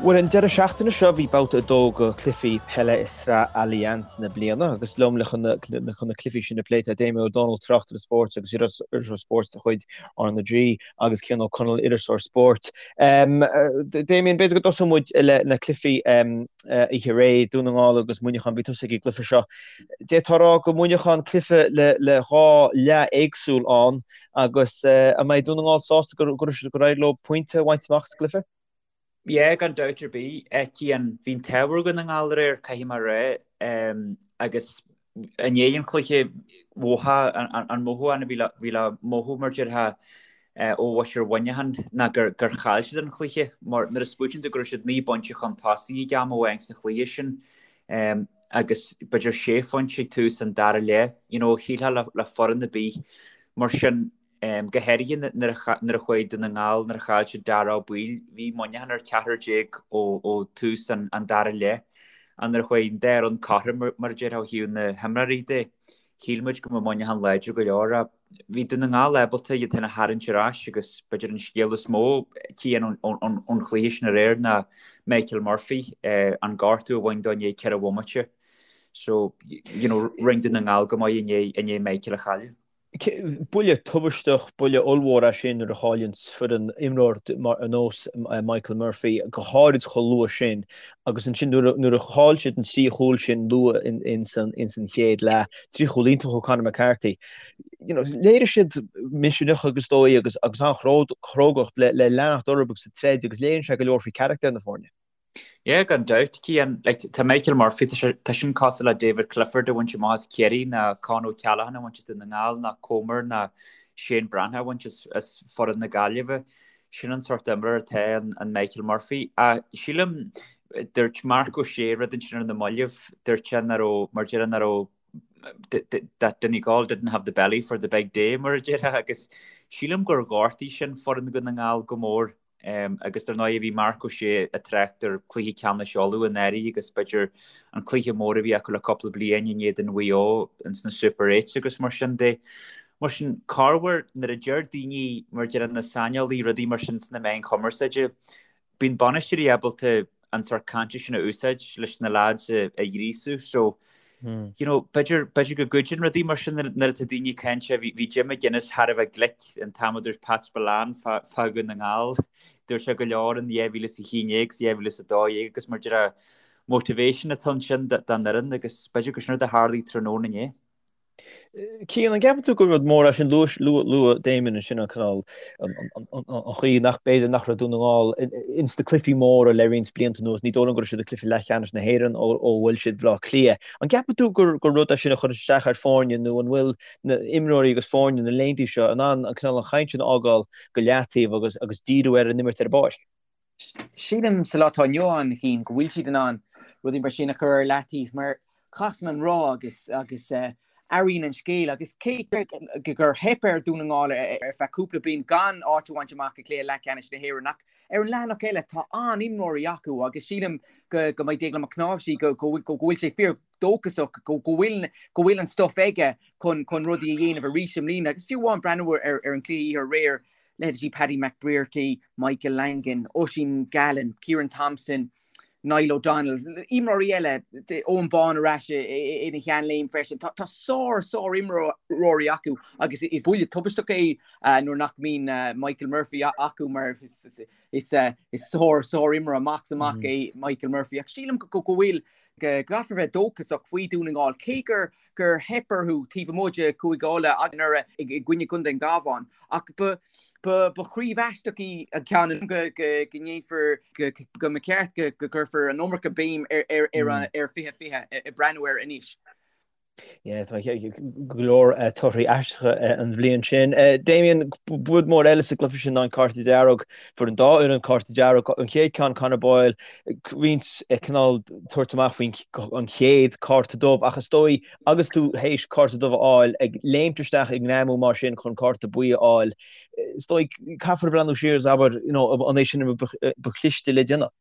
Bhuel, an deireadh seachtaine seo bhí babhta 2 de chluichí peile i Sraith Allianz na bliana agus liom le chun na cluichí sin a phlé tá Damien Ó Dónaill, tráchtaire spóirt agus iriseoir spóirt de chuid RnaG agus Cian Ó Conaill, iriseoir spóirt. Damien, b'fhéidir go dtosóidh muid le na cluichí oíche aréir, Dún na nGall agus Muineachán, bhí tusa ag an gcluiche seo. D'fhéadfá a rá go Muineachán cluiche le dhá leath éagsúil ann agus an mbeidh Dún na nGall sásta gur éirigh leo pointe a bhaint amach sa gcluiche? Yeah, gan dabht ar bith. Cian, bhí an t-ádh ar Dhún na nGall aréir, caithfidh mé a rá, agus i ndiaidh an chluiche, mhothaigh an mothúchán a bhí le mothú, mar déarfá, ó mhuintir Mhuineacháin ná gur chaill siad an cluiche, mar nuair a smaoitíonn tú go raibh siad 9 bpointe chun tosaigh ag am amháin sa chluiche sin, agus b'fhéidir sé phointe ag tús an dara leath, you know, shílfeá le foireann ar bith mar sin. Go háirithe nuair a chuaigh Dún na nGall, nuair a chaill siad Daire Ó Baoill, bhí Muineachán ar 14 ó tús an dara leath. Ach nuair a chuaigh an dá fhoireann cothrom, mar a déarfá, ó thaobh na himreoirí de, shíl muid go mbeadh Muineachán láidir go leor. Ach bhí Dún na nGall ábalta iad féin a tharraingt ar ais agus b'fhéidir an scéal is mó, Cian, ón chluiche sin aréir ná Michael Murphy, an gortú a bhain dó i ndiaidh ceithre bhomaite. So, you know, rinne Dún na nGall go maith i ndiaidh Michael a chailleadh. Buille tubaisteach, buille ollmhór é sin nuair a chailleann foireann imreoir ar nós Michael Murphy, go háirid chomh luath sin. Agus ansin nuair a chaill siad an trí chúl sin luath ins an chéad leath, trí chúl iontach ó Conor McCarthy, you know, léirigh siad misneach agus dóigh agus agus an-chrógacht le leanacht orthu agus ag troid agus léiríonn sé go leor faoi charachtar na foirne. Yeah, gan dabht, Cian. Like, tá Michael Murphy, tá sé, tá sin cosúil le David Clifford a bhaint amach as Ciarraí, ná Con O'Callaghan a bhaint as Dún na nGall, ná Comer, ná Shane Breathnach a bhaint as, as foireann na Gaillimhe. Sin an sórt imreoir atá in, in Michael Murphy. Ach sílim, dúirt Marc Ó Sé rud ansin ar na mallaibh, dúirt sé nach raibh, mar déarfá, nach raibh that Donegal didn't have the belly for the big day, mar a déarfá, agus sílim gur ghortaigh sin foireann Dhún na nGall go mór. Agus dar ndóigh bhí Marc Ó Sé ag trácht ar chluiche ceannais Uladh anuraidh agus b'fhéidir an cluiche mór a bhí acu le cúpla bliain in éadan Mhaigh Eo ins na Super Eights agus mar sin de. Mar sin, corruair nuair a deir daoine, mar a deir na saineolaí, rudaí mar sin sna meáin chumarsáide, bíonn bainisteoirí ábalta an sórt cainte sin a úsáid leis na lads a ghríosú. So, you know, b'fhéidir, b'fhéidir go gcuidíonn rudaí mar sin nuair atá daoine ag caint. Bhí, bhí Jim McGuinness thar a bheith glic an t-am a dúirt Pat Spillane fá, fá Dhún na nGall. Dúirt sé go leor in 2011 's 2012 agus mar déarfá motivation atá ansin don fhoireann agus b'fhéidir gur sin rud a tharlaigh tráthnóna inné. Cian, an gceapann tú gur rud mór é sin luaigh Damien ansin an cineál an chaoi nach b'fhéidir nach raibh Dún na nGall ins na cluichí móra le roinnt blianta anuas, ní dóigh liom go raibh siad ag cluiche leathcheannais na hÉireann ó bhuail siad Baile Átha Cliath. An gceapann tú gur rud é sin a chuireann isteach ar foirne nó an bhfuil na imreoirí agus foirne na laethanta seo in ann an cineál an chaint sin a fhágáil go leataobh agus agus díriú ar an imirt ar an bpáirc? Sílim sa lá atá inniu ann, a Chian, go bhfuil siad in ann rudaí mar sin a chur ar leataobh mar casann an roth agus agus athraíonn an scéal agus cé gur theip ar Dhún na nGall ar feadh cúpla bliain gan áit a bhaint amach i gcluiche leathcheannais na hÉireann ach ar an leathanach eile tá an-imreoirí acu agus sílim go go mbeidh Déaglán Mac Cnáimhsí go go go bhfuil sé fíor dóchasach go go bhfuil go bhfuil an stuif aige chun chun rudaí a dhéanamh arís i mbliana agus fiú amháin breathnú ar ar an cluiche oíche aréir leithéidí Paddy McBrearty, Michael Langan, Oisín Gallen, Ciarán Thompson, Niall O'Donnell, imreoirí eile, Eoghan Bán ar ais ina sheanléim freisin. Tá sár, sár-imreoirí acu agus is buille tubaisteach é nuair nach mbíonn Michael Murphy acu mar is sár, sár-imreoir amach is amach é Michael Murphy. Ach sílim go bhfuil, go gcaithfear bheith dóchasach faoi Dhún na nGall cé gur gur theip orthu taobh amuigh de Chúige Uladh anuraidh i gcoinne Chontae an Chabháin. Ach ba chraobh aisteach í an ceann go ndéanfar, go mba cheart go gcuirfear an iomarca béim ar 2020 ag breathnú air anois. Yeah, tá go leor torthaí aisteacha an bhliain sin. Damien, rud mór eile sa gcluiche sin ná an cárta dearg. Fuair an dá fhoireann cárta dearg. An chéad ceann, Conor Boyle, roinnt cineál tabhairt amach faoin an chéad cárta dubh ach is dóigh agus tú théis cárta dubh a fháil, ag léimt isteach ag greamú mar sin chun cárta buí a fháil, is dóigh caithfear breathnú siar is abair, you know, an é sin an rud ba chliste le déanamh?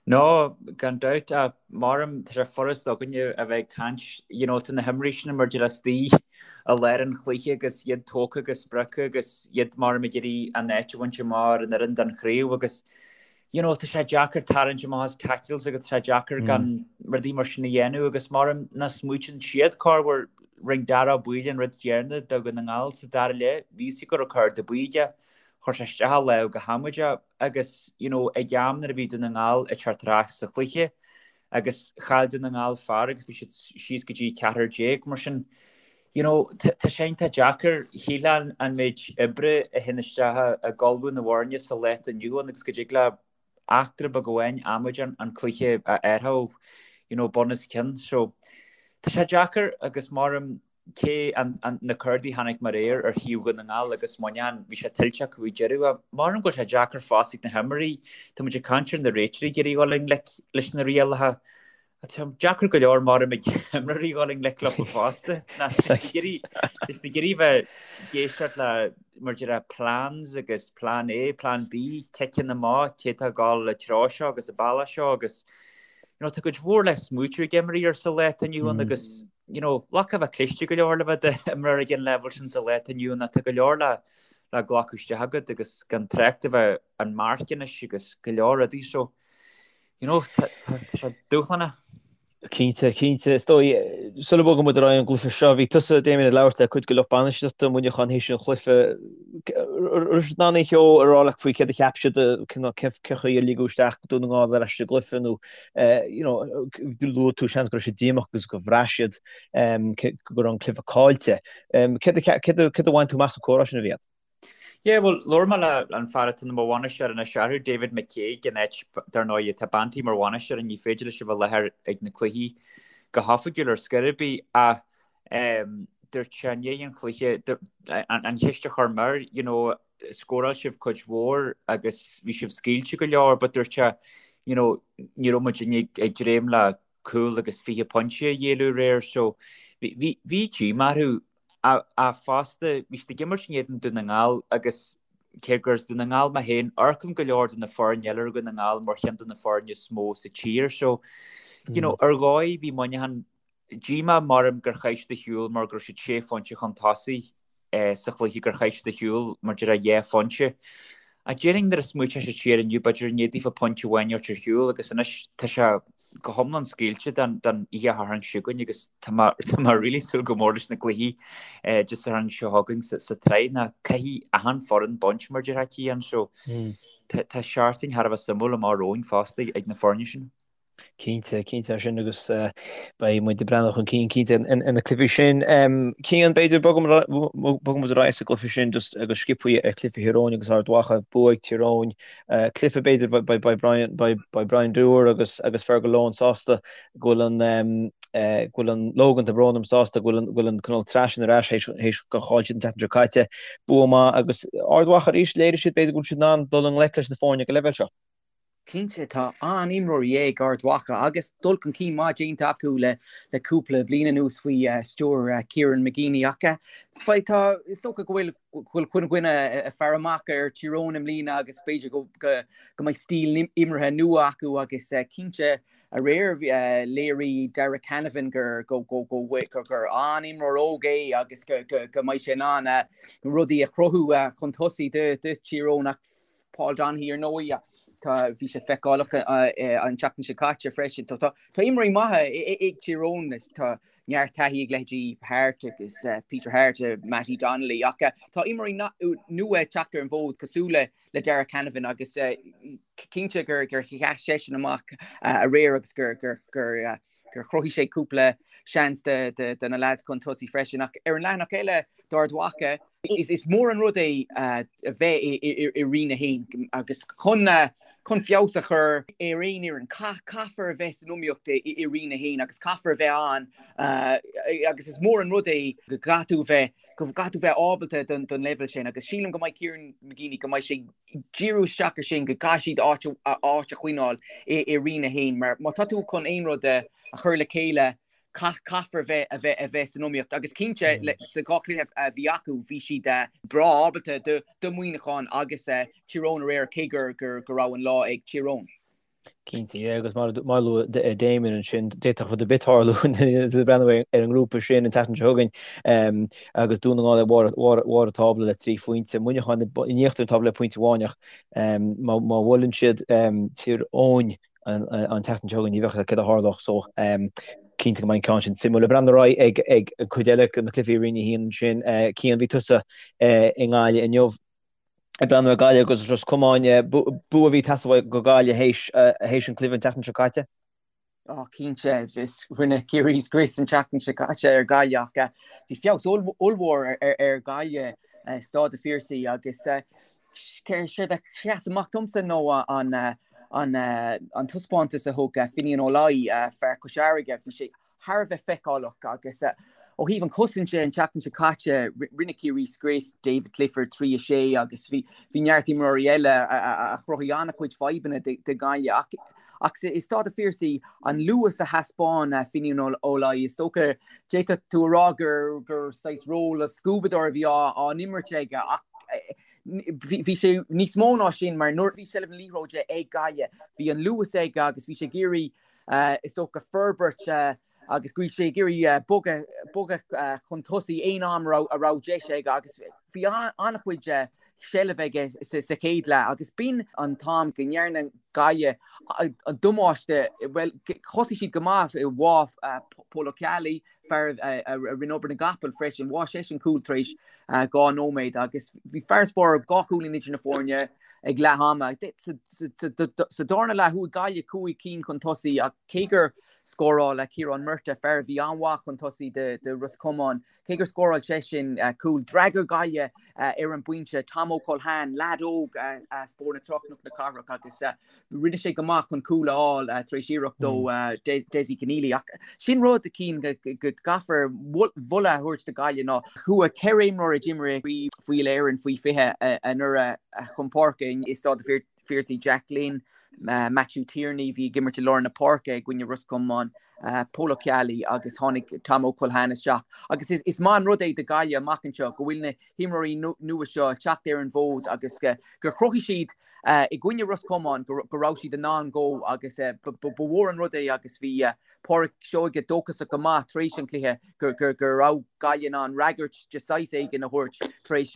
No, gan dabht, ach maram, tá sé furast againne a bheith ag caint, you know, tá na himreoirí sin mar déarfá istigh i lár an chluiche agus iad tógtha agus sprioctha agus iad maram ag iarraidh an áit a bhaint amach ar an fhoireann don chraobh agus. you know, tá sé deacair tarraingt amach as tackles agus tá sé deacair gan rudaí mar sin a dhéanamh agus maram nach smaoitíonn siad corruair rinne Dara Ó Baoill an rud céanna do Dhún na nGall sa dara leath, bhí fhios go raibh cárta buí aige, chuir sé isteach a lámh go hamaideach agus you know, ag am nuair a bhí Dún na nGall ag teacht ar ais sa chluiche agus chaill Dún na nGall fear agus bhí siad síos go dtí 14 mar sin you know, tá sé iontach deacair, shílfeá an méid oibre a théann isteach ag ullmhú na bhfoirne sa lá atá inniu ann agus go dtig le eachtra beag amháin amaideach an cluiche a athrú, you know, bun os cionn. So, tá sé deacair agus maram cé an, an, na cártaí a chonaic mé aréir ar thaobh Dhún na nGall agus Muineachán, bhí sé tuillte acu ag deireadh. Ach maram go bhfuil sé deacair fosta ag na himreoirí, tá muid ag caint ar na réiteoirí ag iarraidh dul i ngleic leis na rialacha. Tá sé deacair go leor maram ag imreoirí dhul i ngleic leo fosta. Tá siad ag iarraidh bheith ag éisteacht le mar a déarfá plans agus plan A, plan B, ciceanna amach, cé atá ag dul an treo seo agus an bealach seo agus you know, tá cuid mhór le smaoitiú ag imreoirí sa lá atá inniu ann agus you know, like a bheith cliste go leor le bheith i d'imreoir ag an leibhéal sin sa lá atá inniu ann tá go leor le le glacadh isteach agat agus gan trácht a bheith an marc anois agus go leor rudaí so You know, tá sé dúshlánach. Cinnte, cinnte. Is dóigh, sula mbogann muid ar aghaidh ón gcluiche seo, bhí tusa, Damien, ag labhairt le cuid de lucht bainistíochta Mhuineacháin théis an chluiche. Raibh siad in ann aon cheo a rá leat faoi céard a cheap siad, cén chaoi ar ligeadh isteach Dún na nGall ar ais sa gcluiche nó, you know, luaigh tú seans go raibh siad díomách agus go bhraith siad go raibh an cluiche caillte. Céard a bhain tú amach sa comhrá sin a bhí agat? Yeah, bhuel, labhair mé le an fear atá mar bhainisteoir anois orthu, David McCague, in áit, dar ndóigh, tá Banty mar bhainisteoir and ní féidir leis a bheith i láthair ag na cluichí go hoifigiúil ar scor ar bith, ach ehm, dúirt sé i ndiaidh an chluiche, an cheist a chuir mé air, you know, scóráil sibh cuid mhór agus bhí sibh scaoilte go leor, but dúirt sé, you know, ní raibh muid ag dréim le cúl agus 20 pointe a ghéilleadh aréir so bhí bhí díomá orthu ach fosta bhí siad ag imirt in éadan Dún na nGall agus cé gur as Dún na nGall mé féin, amharcann go leor de na foirne eile ar Dhún na nGall mar cheann de na foirne is mó sa tír so you know ar dhóigh bhí Muineachán díomá maram gur chaith siad ar shiúl mar go raibh siad sé phointe chun tosaigh sa chluiche gur chaith siad ar shiúl mar a déarfá dhá phointe. Ach déarfainn nuair a smaoiteodh siad siar inniu b'fhéidir an bhféadfaí pointe amháin a thabhairt ar shiúl agus anois tá sé go hiomlán scaoilte don oíche Shathairn seo chugainn agus tá mé tá mé really súil go mór leis na cluichí Dé Sathairn seo chugainn sa sa tsraith ná caithfidh achan foireann baint mar a déarfá Cian so tá tá seachtain thar a bheith suimiúil amach romhainn fosta ag na foirne sin. Cinnte, cinnte é sin agus beidh muid ag breathnú chun cinn cinnte ar na cluichí sin. Cian, b'fhéidir bogfaidh muid ar aghaidh sa gcluiche sin just agus sciobthaí ar chluiche Thír Eoghain agus Ard Mhacha, bua ag Tír Eoghain. Cluiche b'fhéidir beidh Brian beidh Brian Dooher agus agus Fergal Lohan sásta go bhfuil an go bhfuil an Logan tá brón orm sásta go bhfuil an go bhfuil an cineál tsraith sin ar ais théis théis gur chaill siad an tseachtain seo caite. Bua maith agus Ard Mhacha arís léirigh siad b'fhéidir go bhfuil siad in ann dul i ngleic leis na foirne ag an leibhéal seo. Cinnte, tá an-imreoirí ag Ard Mhacha agus dul chun cinn maith déanta acu le cúpla bliain anuas faoi stiúir Kieran McGeeney ach beidh, tá, is dócha go bhfuil, go bhfuil chuile dhuine ag faire amach ar Tír Eoghain i mbliana agus b'fhéidir go, go, go mbeidh stíl imeartha nua acu agus cinnte aréir léirigh Darragh Canavan gur, go, go, go, gur, gur an-imreoir óg é agus go, go, go mbeidh sé in ann rudaí a chruthú chun tosaigh do, do Tír Eoghain ach Paul Donaghy ar ndóigh, tá, bhí sé feiceálach an tseachtain seo caite freisin. Tá, tá, tá imreoirí maithe ag Tír Eoghain, tá neart taithí ag leithéidí Harte agus Peter Harte, Mattie Donnelly, ach tá imreoirí nua ag teacht ar an bhfód cosúil le le Darragh Canavan agus cinnte gur gur sheas seisean amach aréir agus gur gur gur gur chruthaigh sé cúpla seans do na leaids chun tosaigh freisin. Ach ar an leathanach eile d'Ard Mhacha, is mór an rud é a bheith i Roinn 1 agus chun chun feabhas a chur ar aon fhoireann, caithfear a bheith san iomaíocht i Roinn 1 agus caithfear a bheith ann agus is mór an rud é go gcaithfidh tú bheith go gcaithfidh tú bheith ábalta don leibhéal sin agus sílim go mbeidh Kieran McGeeney go mbeidh sé díriú isteach ar sin go gcaithfidh siad áit áit a choinneáil i Roinn 1 mar má tá tú chun aon rud a chur le chéile caithfear bheith a bheith a bheith san iomaíocht agus cinnte sa dhá chluiche a bhí acu bhí siad breá ábalta do Mhuineachán agus Tír Eoghain aréir cé gur go raibh an lá ag Tír Eoghain. Cinnte, yeah, agus mar a luaigh Damien ansin, d'fhéadfadh rud ar bith tarlú breathnú ar an ngrúpa sin an tseachtain seo chugainn agus Dún na nGall ag barr an tábla le 3 phointe, Muineachán in íochtar an tábla le pointe amháin ach má bhuaileann siad Tír Eoghain an tseachtain seo chugainn ní bheadh a fhios céard a tharlódh so cinnte go mbeidh an ceann sin suimiúil. Ag breathnú ar aghaidh ag an cuid eile de na cluichí i Roinn 1 ansin, Cian, bhí tusa i nGaillimh inniu. Ag breathnú ar Gaillimh agus Ros Comáin, bua a bhí ag teastáil go Gaillimh théis an cluiche an tseachtain seo caite. Ó cinnte, is rinne Ciarraí scrios an tseachtain seo caite ar Ghaillimh ach bhí feabhas ollmhór ar Ghaillimh i Staid an Phiarsaigh agus séard a sheas amach domsa nó an an taispeántas a thug Finian Ó Laoi, fear Chois Fharraige. Bhí sé thar a bheith feiceálach agus ó thaobh an chosaint de an tseachtain seo caite rinne Ciarraí scrios David Clifford 3 6 agus bhí bhí neart imreoirí eile a chruthaigh an-chuid fadhbanna do Ghaillimh ach ach i Staid an Phiarsaigh an luas a thaispeáin Finian Ó Laoi is dócha d'fhéadfadh tú a rá gur gur saghas ról scuabadóir a bhí á á n-imirt aige ach bhí sé níos mó ná sin mar nuair a bhí seilbh na liathróide ag Gaillimh bhí an luas aige agus bhí sé ag iarraidh is dócha, forbairt agus go bhí sé ag iarraidh bogadh, bogadh chun tosaigh aon am a raibh, a raibh deis aige agus bhí an-chuid seilbh aige sa chéad leath agus b'in an t-am go ndearna Gaillimh an damáiste, bhuel, thosaigh siad go maith, bháigh Pól Ó Ceallaigh, fear a rinne obair na gcapall freisin, bháigh seisean cúl tar éis 2 nóiméad agus bhí farasbarr 2 chúilín idir na foirne ag leath ama. Sa darna leath chuaigh Gaillimh 5 cinn chun tosaigh ach cé gur scóráil Ciarán Murtagh, fear a bhí an-mhaith chun tosaigh do Ros Comáin, Cé gur scóráil seisean cúl, d'fhreagair Gaillimh ar an bpointe. Tom Ó Culhane, leaid óg as Bóthar na Trá Cnoc na Cathrach agus rinne sé go maith chun cúl a fháil tar éis iarracht ó Dessie Conneely. Ach sin rud a Chian go gcaithfear moladh a thabhairt do Ghaillimh ná chuaigh 4 imreoir a d'imir i gCraobh Uile-Éireann faoi 20 anuraidh chun páirce i Staid an Phiarsaigh, Jack Glynn, Matthew Tierney, bhí ag imirt i lár na páirce i gcoinne Ros Comáin, Pól Ó Ceallaigh agus tháinig Tom Ó Culhane isteach. Agus is maith an rud é do Ghaillimh amach anseo go bhfuil na himreoirí nua seo ag teacht ar an bhfód agus gur chruthaigh siad i gcoinne Ros Comáin go raibh siad in ann dó agus ba mhór an rud é agus bhí Pádraic Seoige dóchasach go maith tar éis an chluiche go raibh Gaillimh in ann fhreagairt de saghas éigin a thabhairt tar éis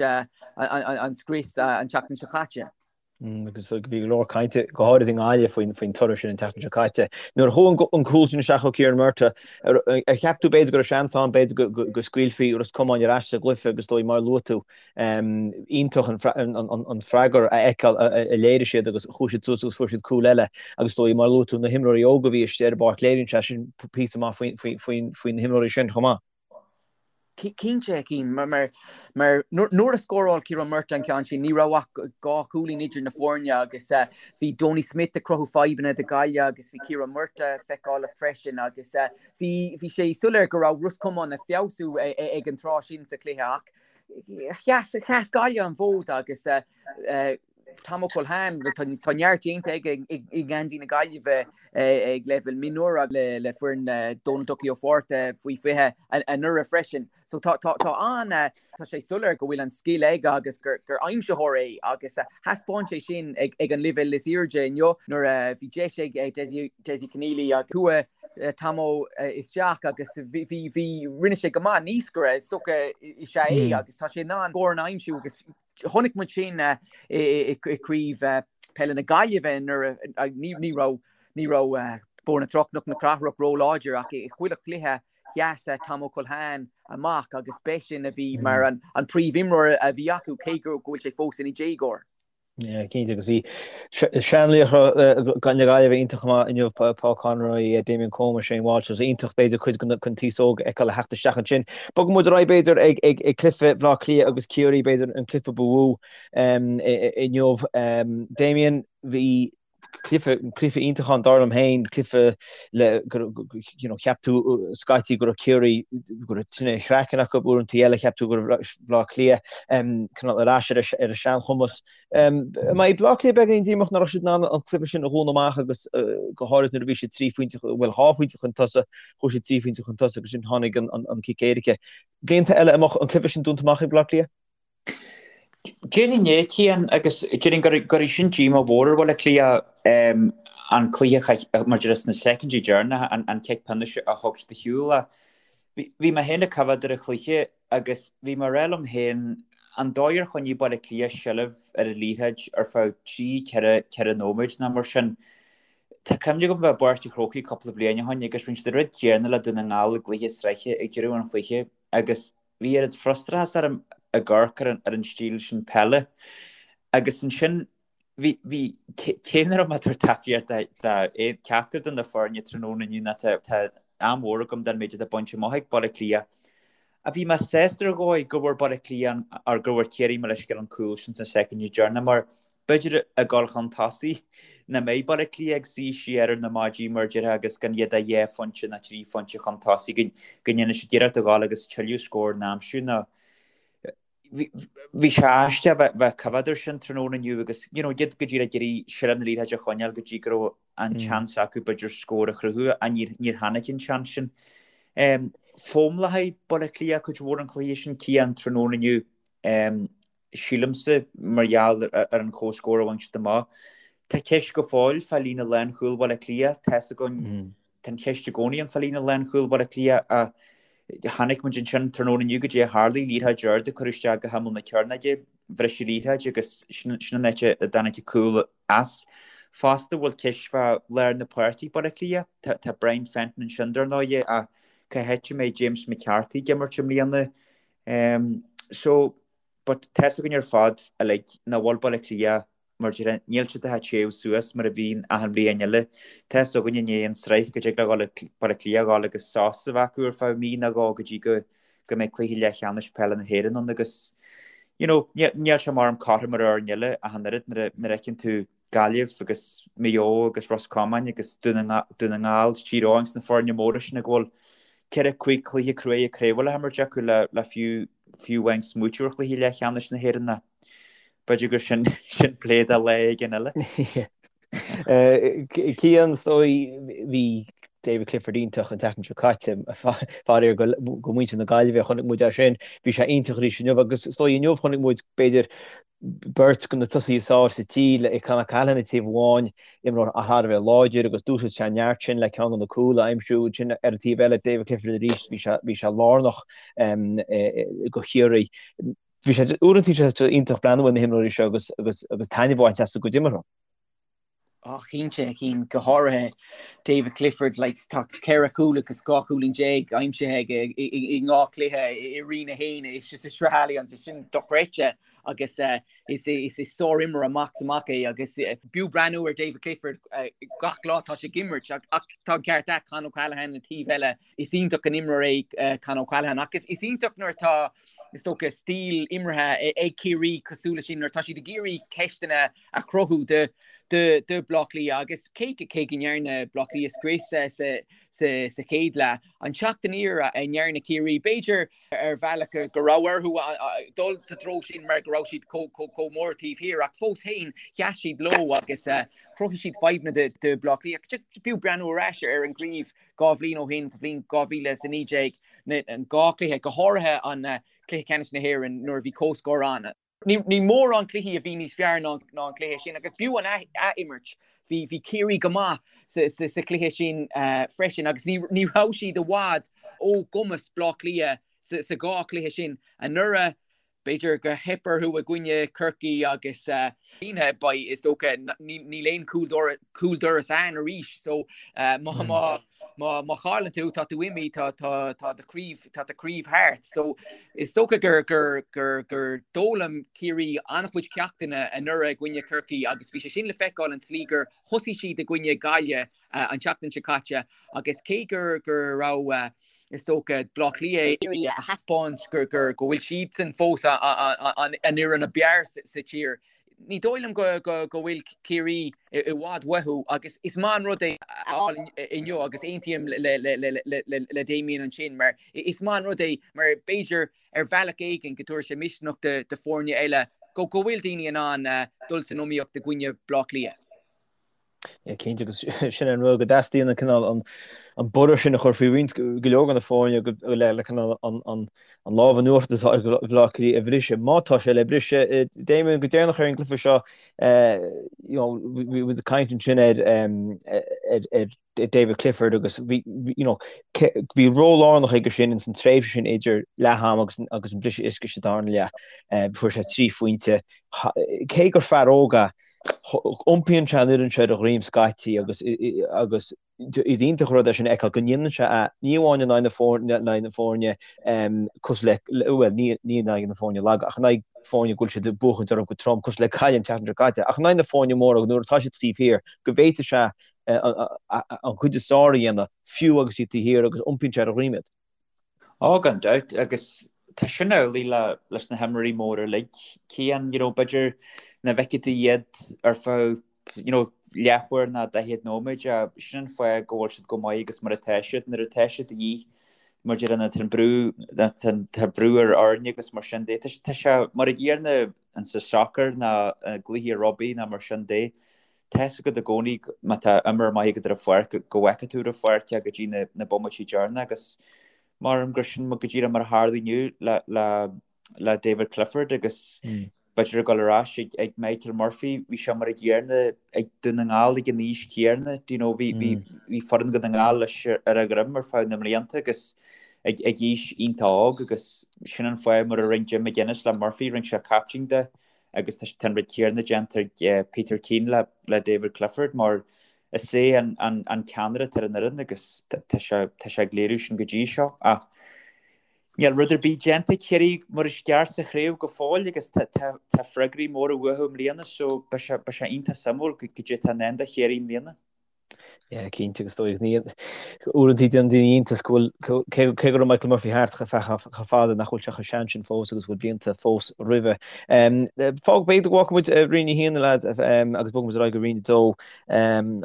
an scrios an tseachtain seo caite. Agus bhí go leor cainte, go háirid i nGaillimh, faoin toradh sin an tseachtain seo caite. Nuair a chuaigh an cúl sin isteach ó Ciarán Murtagh, ar cheap tú b'fhéidir go raibh seans ann, b'fhéidir go scaoilfí Ros Comáin ar ais sa gcluiche agus is dóigh mar a luaigh tú, iontach an freagra a fheiceáil a léirigh siad agus chuaigh siad suas agus fuair siad cúl eile agus is dóigh mar a luaigh tú na himreoirí óga a bhí istigh ar an bpáirc léiríonn sé sin píosa maith faoi na himreoirí sin chomh maith. Cinnte, a Chian, mar nuair a scóráil Ciarán Murtagh an ceann sin, ní raibh ach 2 chúilín idir na foirne agus bhí Donie Smith ag cruthú fadhbanna do Ghaillimh agus bhí Ciarán Murtagh feiceálach freisin agus bhí sé soiléir go raibh Ros Comáin ag feabhsú ag an tráth sin sa chluiche ach sheas Gaillimh an fód agus Tom Ó Culhane, tá neart déanta aige i ngeansaí na Gaillimhe ag leibhéal mionúir le foireann Dónal Ducky Ó Fátharta faoi 20 anuraidh freisin. So tá tá an tá sé soiléir go bhfuil an scil aige agus gur gur aimsitheoir é agus thaispeáin sé sin ag ag an leibhéal is airde inniu nuair a bhí deis ag Dessie Dessie Conneely agus chuaigh Tommo isteach agus bhí bhí bhí rinne sé go maith naoscaire is dócha is ea é agus tá sé in ann scóranna a aimsiú agus Chonaic muid sin i gCraobh Peile na Gaillimhe nuair a ní raibh ní raibh Bóthar na Trá Cnoc na Cathrach róláidir ach i chuile chluiche sheas Tom Ó Culhane amach agus b'eisean a bhí mar an príomhimreoir a bhí acu cé go bhfuil sé fós ina dhéagóir. Yeah, cinnte agus bhí seanlaochra na Gaillimhe iontach go maith inniu, Paul Conroy, Damien Comer, Shane Walsh, so iontach b'fhéidir cuid den aos óg a fheiceáil a theacht isteach ansin. Bogfaidh muid ar aghaidh b'fhéidir ag ag ag cluiche Bhaile Átha Cliath agus Ciarraí, b'fhéidir an cluiche ba mhó inniu. Damien, bhí cluiche cluiche iontach ann dar liom féin, cluiche le go you know cheap tú scaití go raibh Ciarraí go raibh tine chraicinn acu uaireanta eile cheap tú go raibh Bleá Cliath cineál ar ais ar a seanchumas. An mbeidh Bleá Cliath beagáinín díomách nach raibh siad in ann an cluiche sin a dhúnadh amach agus go háirid nuair a bhí siad 3 phointe, bhuel 2 phointe chun tosaigh, chuaigh siad 3 phointe chun tosaigh agus ansin tháinig an cic éirice. Blianta eile an mbeadh an cluiche sin dúnta amach ag Bleá Cliath? Déarfainn é, Cian, agus déarfainn gur é sin díomá mhór ar Bhaile Átha Cliath. An cluiche mar a déarfá sna soicindí deireanacha, an cic pionóis a thug siad ar shiúl. Bhí mé féin ag coimhéad ar an chluiche agus bhí mé ag rá liom féin an dóigh ar choinnigh Baile Átha Cliath seilbh ar an liathróid ar feadh 3, 4, 4 nóiméad nó mar sin. Tá cuimhne agam bheith i bPáirc an Chrócaigh cúpla bliain ó shin agus rinne siad an rud céanna le Dún na nGall i gcluiche sraithe ag deireadh an chluiche agus bhí oiread frustrachas orm ag amharc ar an stíl sin peile agus ansin Bhí, bhí, cé nach raibh mé ag tabhairt tacaíocht do cheachtar de na foirne tráthnóna inniu ná tá, tá an-mhór agam don méid atá bainte amach ag Baile Átha Cliath. Ach bhí mé sásta ar dhóigh go bhfuair Baile Átha Cliath an, or go bhfuair Ciarraí mo leithscéal an cúl sin sna soicindí deireanacha mar b'fhéidir ag dul chun tosaigh nach mbeidh Baile Átha Cliath ag suí siar ar na maidí mar a déarfá agus gan iad ach dhá phointe nó trí phointe chun tosaigh go, go ndéanfaidh siad iarracht a ghabháil agus tuilleadh scór a aimsiú nó Bhí sé aisteach bheith ag coimhéad air sin tráthnóna inniu agus you know iad go díreach ag iarraidh seilbh na liathróide a choinneáil go dtí go raibh an seans acu b'fhéidir scór a chruthú ach níor níor tháinig an seans sin. Fómlachaí Baile Átha Cliath cuid mhór an chluiche sin Cian tráthnóna inniu sílimse mar gheall ar an chomhscór a bhain siad amach. Tá ceist go fóill fá líne lánchúil Bhaile Átha Cliath, tá's againn Tá an cheist i gcónaí ann fá líne lánchúil Bhaile Átha Cliath ach chonaic muid ansin tráthnóna inniu goidé a tharlaigh, liathróid ard a cuireadh isteach go himeall na cearnóige, bhris an liathróid agus sin an áit a dtáinig an cúl as. Fosta bhfuil ceist fá lár na páirce ag Baile Átha Cliath. Tá Brian Fenton ansin dar ndóigh ach cá háit a mbeidh James McCarthy ag imirt i mbliana? So, but tá's againn ar fad uilig nach bhfuil Baile Átha Cliath Mar a déarfá, níl siad ag téamh suas mar a bhíonn achan bhliain eile. Tá's againn i ndiaidh an sraith go dtig le Baile Átha Cliath a dhul agus sos a bheith acu ar feadh mí nó dhó go dtí go go mbeidh cluiche leathcheannais peile na hÉireann ann agus you know níl sé mar am cothrom ar fhoirne eile ach an oiread nuair a nuair a fheiceann tú Gaillimh agus Maigh Eo agus Ros Comáin agus Dún na nGall, Tír Eoghain agus na foirne móra sin ag bhfuil 4, 5 cluiche cruaidh craoibhe le himirt acu le le fiú fiú amháin smaoitiú ar chluiche leathcheannais na hÉireann. B'fhéidir gur sin sin plé do lá éigin eile. Cian, is dóigh, bhí David Clifford iontach an tseachtain seo caite, faraor do mhuintir na Gaillimhe, chonaic muid é sin, bhí sé iontach arís inniu agus is dóigh inniu chonaic muid b'fhéidir beirt de na tosaithe is fearr sa tír le Con O'Callaghan ag taobh amháin, imreoir thar a bheith láidir agus d'úsáid sé an neart sin le ceann de na cúil a aimsiú, ansin ar an taobh eile David Clifford arís, bhí sé bhí sé lárnach do Chiarraí. Bhí sé uaireanta bhí sé iontach breathnú ar na himreoirí seo agus agus agus taitneamh a bhaint as a gcuid imeartha. Á cinnte, a Chian, go háirithe David Clifford, like, tá 14 chúl agus 12 chúilín aimsithe aige i ndhá chluiche i Roinn 1, is sa Sraith Allianz, is sin dochreidte agus is is sárimreoir amach is amach é agus b'fhiú breathnú ar David Clifford gach lá tá sé ag imirt ach tá an ceart agat Con O'Callaghan an taobh eile Is iontach an imreoir é Con O'Callaghan ach is iontach nuair atá, is dócha, stíl imeartha ag Ciarraí cosúil leis sin, nuair atá siad ag iarraidh ceisteanna a chruthú do Bhleá Cliath agus cé cé go ndearna Bleá Cliath scrios sa chéad leath, an teacht aniar a ndearna Ciarraí, b'fhéidir ar bhealach go raibh orthu dul sa treo sin mar go raibh siad chomh mór taobh thiar ach fós féin sheas siad leo agus chruthaigh siad fadhbanna do Bhleá Cliath. B'fhiú breathnú ar ais ar an gcraobh 2 bhliain ó shin, sa bhliain 2019, an dhá chluiche, go háirithe an cluiche ceannais na hÉireann nuair a bhí comhscór ann. Ní mórán cluichí a bhí níos fearr ná an cluiche sin agus b'fhiú an ath-imirt. Bhí bhí Ciarraí go maith sa chluiche sin freisin agus ní ní raibh siad i bhfad ó gcumas Bleá Cliath sa dhá chluiche sin anuraidh. B'fhéidir gur theip orthu i gcoinne Chorcaí agus beidh, is dócha, níl aon chúldoras ann arís so má má chailleann tú tá tú imithe, tá tá do chraobh tá do chraobh thart. So is dócha gur gur gur gur d'fhoghlaim Ciarraí an-chuid ceachtanna anuraidh i gcoinne Chorcaí agus bhí sé sin le feiceáil an tslí gur thosaigh siad i gcoinne Gaillimh an tseachtain seo caite agus cé gur go raibh, is dócha, Bleá Cliath ag iarraidh a thaispeáint gur gur go bhfuil siadsan fós an fhoireann ab fhearr sa tír, ní dóigh liom go go go bhfuil Ciarraí i bhfad uathu agus is maith an rud é a fháil inniu agus aontaím le le le le le Damien ansin mar is maith an rud é mar b'fhéidir ar bhealach éigin go dtabharfaidh sé misneach do foirne eile go go bhfuil daoine in ann dul san iomaíocht i gcoinne Bleá Cliath. Yeah, cinnte agus sin an rud go dteastaíonn an cineál an borradh sin a chur faoi roinnt go leor de na foirne le le cineál an an an lámh in uachtar atá ag Baile Átha Cliath a bhriseadh. Má tá sé le briseadh, Damien, go deireanach ar an gcluiche seo, you know, bhí muid ag caint ansin ar ar ar David Clifford agus bhí you know, bhí ról lárnach aige sin ins an tréimhse sin idir leath am agus agus an briseadh uisce sa darna leath. Fuair sé 3 phointe. Cé gur fear óg é, iompaíonn sé an fhoireann seo ar a dhroim scaití agus agus is iontach an rud é sin a fheiceáil go ndéanann sé é ní amháin in aghaidh na foirne in aghaidh na foirne cosúil le bhuel ní ní in aghaidh na foirne laga ach in aghaidh foirne go bhfuil siad ag buachaint orthu go trom cosúil le Gaillimh an tseachtain seo caite ach in aghaidh na foirne móra nuair atá siad taobh thiar go bhféadfaidh sé an chuid is fearr a dhéanamh, fiú agus iad taobh thiar, agus iompaíonn sé ar a dhroim iad. Ó, gan dabht, agus tá sin amhlaidh le leis na himreoirí móra uilig, Cian, you know, b'fhéidir nach bhfeicfidh tú iad ar feadh, you know, leathuair ná 40 nóiméad, sin an fáth go bhfuil siad chomh maith agus mar atá siad, nuair atá siad de dhíth, mar a déarfá, tá an brú, tá brú ar fhoirne agus mar sin de, tá sé mar a gcéanna in sa soccer ná i gcluichí rugbaí ná mar sin de. Tá fhios agat i gcónaí má tá imreoir maith agat ar an pháirc go bhfeicfidh tú ar an pháirc é go dtí na bomaití deireanacha agus measaim gur sin go díreach mar a tharla inniu le le le David Clifford agus b'fhéidir ag dul ar ais ag ag Michael Murphy bhí sé mar a gcéanna ag Dún na nGall ag an aois chéanna do you know bhí bhí bhí foireann Dhún na nGall leis ar a dhroim ar feadh na mblianta agus ag ag aois iontach óg agus sin an fáth mar a rinne Jim McGuinness le Murphy rinne sé captaen de agus tá an rud céanna déanta ag Peter Keane le David Clifford mar is é an ceannaire atá ar an fhoireann agus tá sé ag léiriú sin go dtí seo. Ach níl rud ar bith déanta ag Ciarraí mar is ceart sa chraobh go fóill agus tá freagraí móra uathu i mbliana so beidh sé iontach suimiúil goidé atá i ndán do Chiarraí i mbliana. Yeah, cinnte agus dóigh ní uaireanta déanann daoine iontas go bhfuil cé cé go raibh Michael Murphy thart chomh feadh chomh fada nach bhfuil sé chomh sean sin fós agus go bhfuil blianta fós roimhe. Fág b'fhéidir go bhfágfaidh muid Roinn 1 a lads agus bogfaidh muid ar aghaidh go Roinn 2.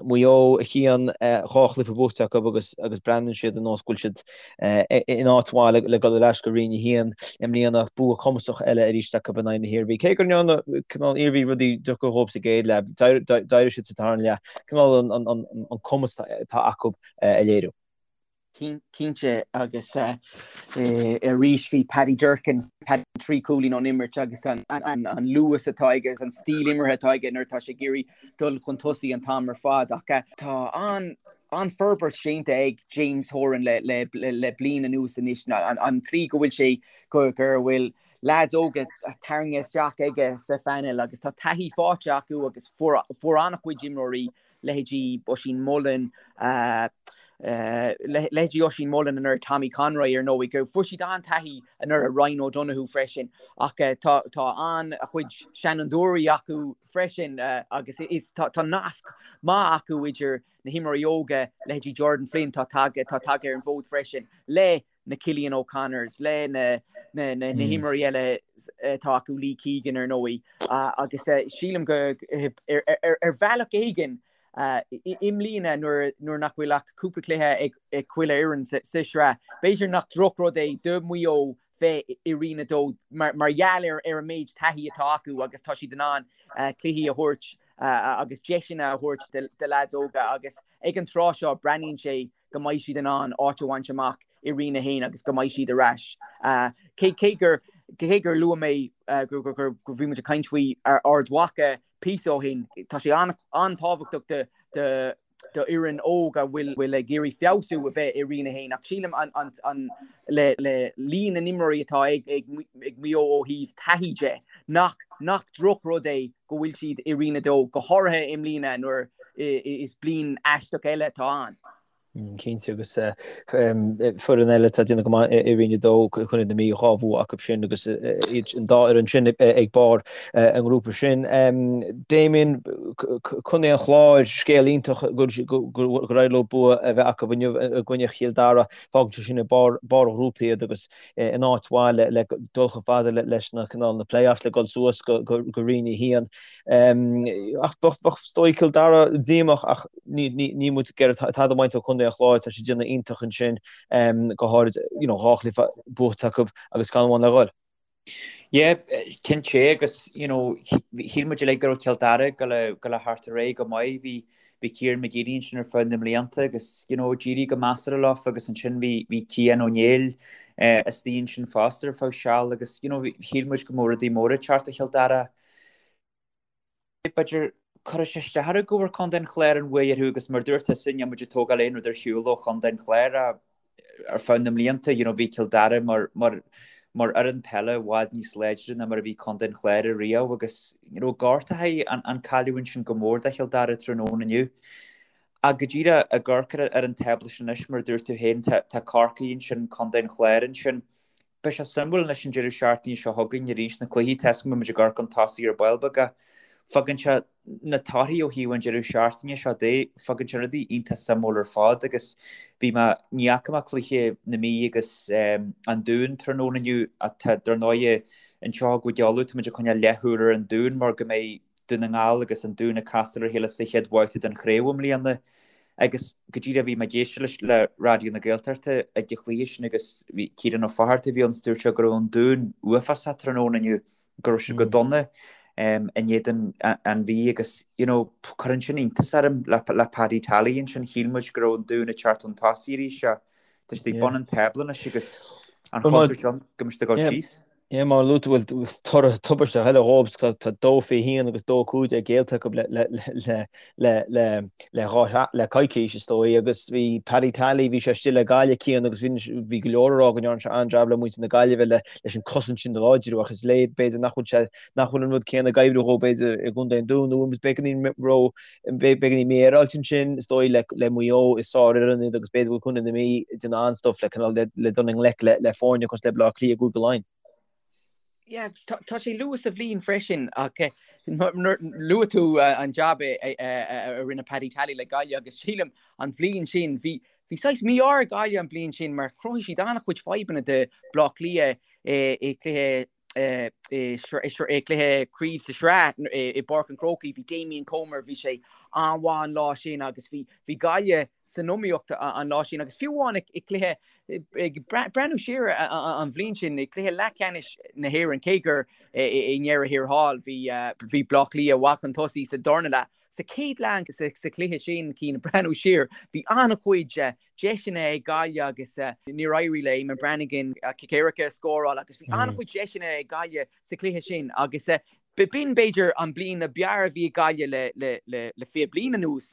Maigh Eo a Chian 2 chluiche buaite acu agus agus breathnaíonn siad ar nós go bhfuil siad in áit mhaith le dul ar ais go Roinn 1 i mbliana, bua cumasach eile arís acu in aghaidh na hIarmhí. Cé go ndearna cineál Iarmhí rudaí deacair dhóibh sa gcéad leath, d'éirigh siad sa tarna leath, cineál an cumas atá acu a léiriú. Cinnte, agus arís bhí Paddy Durcan, 3 cúilín ón imirt agus an luas atá aige agus an stíl imeartha atá aige nuair atá sé ag iarraidh dul chun tosaigh an t-am ar fad. Ach tá an an-fhorbairt déanta ag James Horan le bliain anuas anois, an tslí go bhfuil sé, go bhfuil leaids óga tarraingthe isteach aige sa phainéal agus tá taithí faighte acu agus fuair an-chuid imreoirí, leithéidí Oisín Mullin, leithéidí Oisín Mullin anuraidh, Tommy Conroy ar ndóigh, go fuair siad an-taithí anuraidh, Ryan O'Donoghue freisin ach tá an-chuid seanfhondúirí acu freisin agus tá nasc maith acu idir na himreoirí óga, leithéidí Jordan Flynn, tá tagtha ar an bhfód freisin, le na Cillian O'Connors, le na himreoirí eile atá acu, Lee Keegan ar ndóigh, agus sílim go ar bhealach éigin i mbliana nuair nach bhfuil ach cúpla cluiche ag chuile fhoireann sa sraith, b'fhéidir nach drochrud é do Mhaigh Eo bheith i Roinn 2 mar gheall ar an méid taithí atá acu agus tá siad in ann cluichí a thabhairt agus deiseanna a thabhairt do leaids óga agus ag an tráth seo breathnaíonn sé go mbeidh siad in ann áit a bhaint amach i Roinn 1 agus go mbeidh siad ar ais. Cé gur cé gur luaigh mé gur bhí muid ag caint faoi Ard Mhacha píosa ó shin, tá sé an-tábhachtach do do fhoireann óg a bhfuil ag iarraidh feabhsú a bheith i Roinn 1 ach sílim an le líon na n-imreoirí atá ag Maigh Eo ó thaobh taithí de nach nach drochrud é go bhfuil siad i Roinn 2, go háirithe i mbliana nuair is bliain aisteach eile atá ann. Cinnte agus foireann eile atá ag déanamh go maith i Roinn 2, Contae na Mí, 2 bhua acu sin agus iad an dá fhoireann sin ag barr an ngrúpa sin. Damien, Contae an Chláir, scéal iontach gur éirigh leo bua a bheith acu inniu i gcoinne Chill Dara. Fágann sé sin ag barr an ghrúpa iad agus in áit mhaith le dul chomh fada leis na cineál na play-offs le dul suas go Roinn 1. Ach bheadh is dóigh Cill Dara díomách ach níl muid ag iarraidh tada a bhaint ó Chontae an Chláir, tá siad ag déanamh iontach ansin, go háirid you know 2 chluiche buaite acu agus ceann amháin le dhul. Yeah, cinnte agus you know shíl muid uilig go raibh Cill Dara ag dul a ghoil a theacht ar aghaidh go maith. Bhí bhí Kieran McGeeney ansin ar feadh na mblianta agus you know d'éirigh go measartha leofa agus ansin bhí bhí Cian Ó Néill eh, istigh ansin fosta ar feadh seal agus you know shíl muid go mbeadh rudaí móra ag teacht do Chill Dara. B'fhéidir, cuirfidh sé isteach orthu go bhfuair Contae an Chláir an bhuaidh orthu agus mar dúirt tusa, níl muid ag tógáil aon rud ar shiúl ó Chontae an Chláir ar feadh na mblianta, you know, bhí Cill Dara mar, mar, mar fhoireann peile i bhfad níos láidre ná mar a bhí Contae an Chláir ariamh agus, you know, gortaithe an, an cailleadh ansin go mór do Chill Dara tráthnóna inniu. Ach go díreach ag amharc ar, ar an tábla sin anois, mar a dúirt tú féin, tá, tá Corcaigh ansin, Contae an Chláir ansin, Beidh sé suimiúil anois an deireadh seachtaine seo chugainn arís na cluichí, tá 'fhios agam go mbeidh muid ag amharc chun tosaigh ar ball beag ach fágann sé na torthaí ó thaobh an deireadh seachtaine seo de, fágann sé rudaí iontach suimiúil ar fad agus bhí mé, ní fhaca mé cluiche na Mí agus an Dúin tráthnóna inniu ach tá dar ndóighe anseo i gCúige Uladh tá muid ag coinneáil leathshúil ar an Dún mar go mbeidh Dún na nGall agus an Dún ag castáil ar a chéile sa chéad bhabhta den chraobh i mbliana. Agus go díreach bhí mé ag éisteacht le Raidió na Gaeltachta ag an chluiche sin agus bhí Ciarán Ó Fátharta a bhí ann is dúirt sé go raibh an Dún uafásach tráthnóna inniu, go raibh siad go dona in éadan an Mhí agus you know cuireann sin iontas orm le le Paddy Tally ansin, shíl muid go raibh an Dún ag teacht chun tosaigh arís ach tá siad ag bun an tábla anois agus an chontúirt ann go mbeidh siad ag dul síos. Yeah, mar a luaigh tú, bhuel, toradh tubaisteach eile dhóibh, tá 2-21 agus 2-15 géillte acu le coicís, is dóigh, agus bhí Paddy Tally, bhí sé istigh le Gaillimh, Cian, agus bhí go leor ag rá go ndearna sé an-jab le muintir na Gaillimhe leis an cosaint sin a láidriú, ach is léir, b'fhéidir, nach bhfuil sé, nach bhfuil an rud céanna ag oibriú dhó, b'fhéidir, i gContae an Dúin, nó beagáinín ró, beagáinín mífhéaráilte ansin, is dóigh, le Maigh Eo, is sárfhoireann iad agus b'fhéidir go bhfuil Contae na Mí ag déanamh an-stuif le cineál le dul i ngleic le foirne cosúil le Baile Átha Cliath i gCúige Laighean. Yeah, agus tá sé luath sa bhliain freisin ach luaigh tú an jab a rinne Paddy Tally le Gaillimh agus sílim an bhliain sin bhí bhí saghas mí-ádh ar Gaillimh an bhliain sin mar chruthaigh siad an-chuid fadhbanna do Bleá Cliath i gcluiche i gcluiche craoibhe sa sraith i bPáirc an Chrócaigh, bhí Damien Comer, bhí sé an-mhaith an lá sin agus bhí bhí Gaillimh san iomaíocht an lá sin agus fiú amháin i gcluiche ag breathnú siar an bhliain sin i gcluiche leathcheannais na hÉireann cé gur i ndeireadh thiar thall bhí bhí Bleá Cliath i bhfad chun tosaigh sa darna leath. Sa chéad leath sa chluiche sin Cian breathnú siar bhí an-chuid deiseanna ag Gaillimh agus níor éirigh le Eamonn Brannigan cic éirice a scóráil agus bhí an-chuid deiseanna ag Gaillimh sa chluiche sin agus b'in b'fhéidir an bliain ab fhearr a bhí ag Gaillimh le le 20 bliain anuas.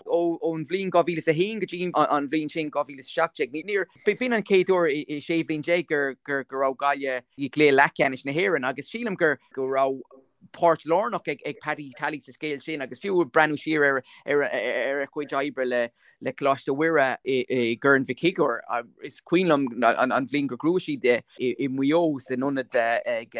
Ón bhliain 2001 go dtí an bhliain sin 2017 níor b'in an chéad uair i 16 bhliain gur go raibh Gaillimh i gcluiche leathcheannais na hÉireann agus sílim gur go raibh páirt lárnach ag Paddy Tally sa scéal sin agus fiú ag breathnú siar ar ar a chuid oibre le le Coláiste Mhuire i gCorn Mhic Shigiúir, is cuimhin liom an bhliain gur ghnóthaigh siad i Maigh Eo san ionad ag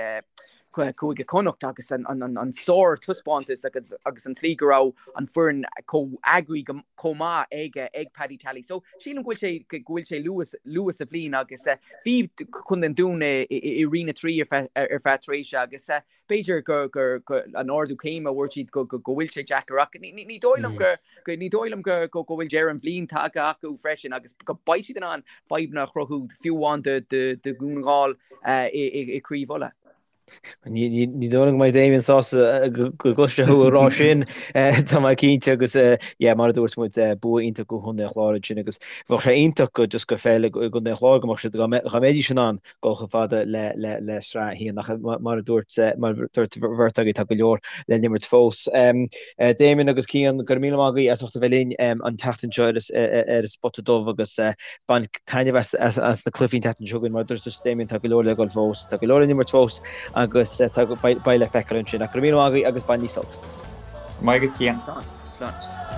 Cúige Chonnacht agus an sár-taispeántas agus an tslí go raibh an foireann chomh eagraithe chomh maith ag ag Paddy Tally. So sílim go bhfuil sé go bhfuil sé luath luath sa bhliain agus bhí Contae an Dúin i Roinn 3 ar feadh tréimhse agus B'fhéidir gur an ardú céime a bhfuair siad go bhfuil sé deacair ach ní dóigh liom go ní dóigh liom go go bhfuil deireadh an bhliain tagtha acu freisin agus go beidh siad in ann fadhbanna a chruthú fiú amháin do Dhún na nGall i gCraobh Uladh. Ní dóigh liom go mbeidh Damien sásta go gcloisfidh sé thú ag rá sin, tá mé cinnte agus yeah mar a dúirt muid bua iontach do Chontae an Chláir ansin agus bheadh sé iontach go just go pheil i gContae an Chláir go mbeadh siad dá mbeidís in ann dul chomh fada le sraith a haon ach mar a dúirt mar a dúirt bheirt agaibh tá go leor le n-imirt fós. Damien agus Cian, go raibh míle maith agaibh as ucht a bheith linn an tseachtain seo ar an Spota Dubh agus bain taitneamh as na cluichí an tseachtain seo chugainn mar a dúirt Damien tá go leor le dul fós, tá go leor le n-imirt fós agus beidh le feiceáil ansin ach go raibh míle maith agaibh agus bainigí sult. Maith agat Cian. Slán.